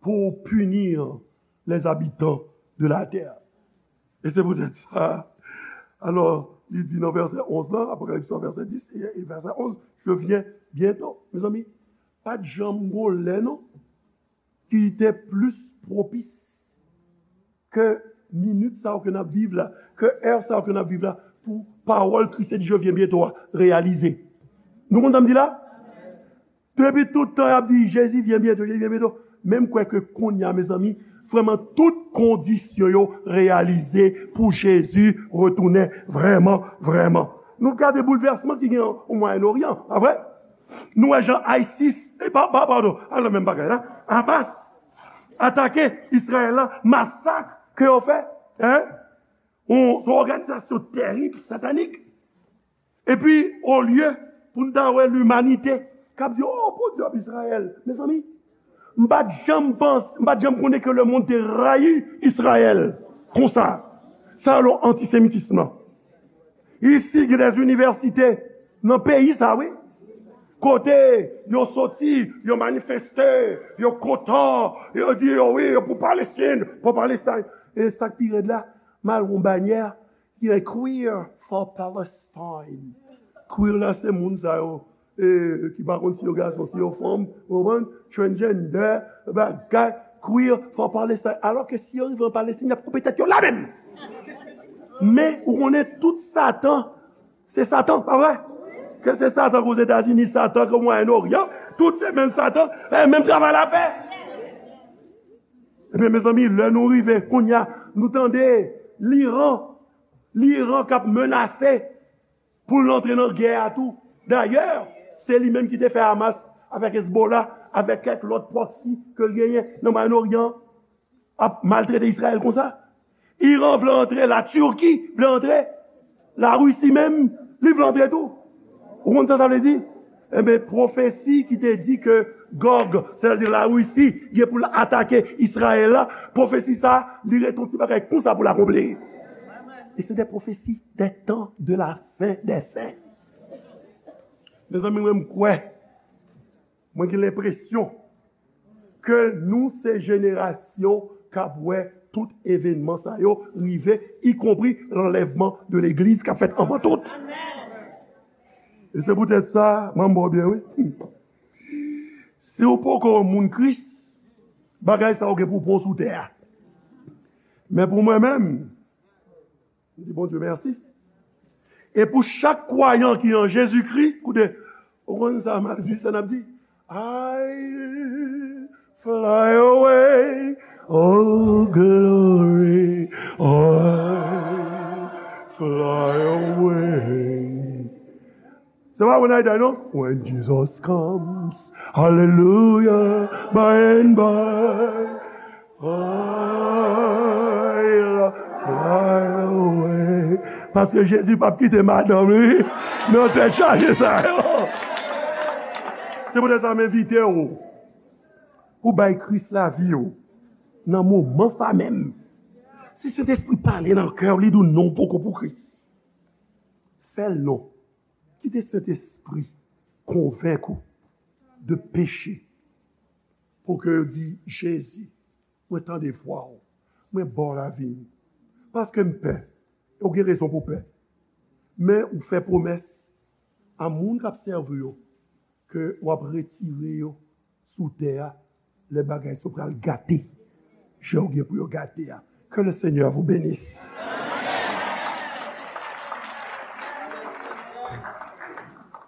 pour punir les habitants de la terre. E se poutèt sa, alò, li di nan vèsè onz lan, Apokalips twa, vèsè dis e, e vèsè onz, je viens bientôt. Mezanmi, pa t janm gon lè non ki te plis pwopis ke minit sa yo ke n ap viv la, ke è sa yo ke n ap viv la, pou pawòl Kris te di je viens bientôt a reyalize. Nou konn sa m di la? Depi tout tan y ap di Jezi vyen byento, Jezi vyen byento. Men m kwè ke kounye a, mezanmi, vrèman tout kondisyon yo reyalize pou Jezi retounen vrèman, vrèman. Nou gade boulvèsman ki gen o Mwayen Oryan, pa vre? Nou wè jan ISIS, e pa, pa, padon, a nan menm bagay la, Hamas atake Izrayèl la, masak ke yo fè, en? Yon, se yon òganizasyon tèrib, satanik. Epi, olye pou n ta wè limanite k ap di, "Oh, Bondye ap Izrayèl." Mezanmi, m pa t janm panse, m pa t janm konnen ke lemonn te rayi Izrayèl konsa. Sa yo antisemitism lan. Isi, gen des universités nan peyi sa, wi. Kote yo soti, yo manifeste, yo kontan, yo di yo wi, yo pou Palestin, pou Palestin. E sa k pi rèd la, m al wè yon banyè, ki gen Queer for Palestine. Queer la, se moun sa yo, e, ki pa konn si yo gason, si yo fanm, ou konprann? Transgender, bagay, Queer for Palestine. Alò ke si yo rive an Palestin, y ap koupe tèt yo la menm. Men, ou konnen tout Satan, se Satan, pa vre? Ke se Satan k Ozetazini, Satan k Mwayen Oryan, tout se menm Satan, e menm travay l ap fè. Ebyen, mezanmi, lè nou rive, kounye a, nou tande Liran, Liran k ap menase pou l antre nan gè a tou. Dayè, se li menm ki te fè Hamas avèk Hezbollah, avèk kèk lòt pwòksi ke l genyen nan Mwayen Oryan, ap maltrete Izrayèl konsa. Iran vle antre, Latirki vle antre, Larisi menm, li vle antre tou. Ou konn sa sa vle di? Enben, pwofesi ki te di ke Gòg, sètadi Larisi, gen pou l atake Izrayèl la, pwofesi sa, li ret yon ti bagay konsa pou l akonpli. E se de pwofesi de tan de la fen de fen. Mezanmi, mwen, m kwè, mwen gen lenpresyon ke nou se jenerasyon k ap wè tout evènman sa yo rive, ikonpri lanlèvman de legliz k ap fèt anvan tout. E se poutèt sa, mwen, m ba w byen, wi. Si w poko yon moun Kris, bagay sa yo gen pou pran w sou tè a. Men pou mwen menm, m di Bondye mèsi. E pou chak kwayan ki an Jezikri, koute, ou konn sa m ap di, sa n ap di? I fly away, oh glory, I fly away. Se pa When I Die, non? When Jesus comes, hallelujah, by and by, I'll fly away. Paske Jezi p ap kite madanm li nan tèt chaje sa yo. Se poutèt sa m envite w pou bay Kris lavi w nan moman sa menm. Si Sentespri pale nan kè w, li di w non, w poko pou Kris. Fè l non. Kite Sentespri konvenk ou de peche. Pou ke yo di, Jezi, mwen tande vwa w. Mwen ba w lavi m. Paske m pè. E w gen rezon pou pè. Men ou fè pwomès a moun k ap sèvi yo ke w ap retire yo sou tè a, lè bagay sa yo pral gate, jan yo gen pou yo gate a. Que le Seigneur vous bénisse.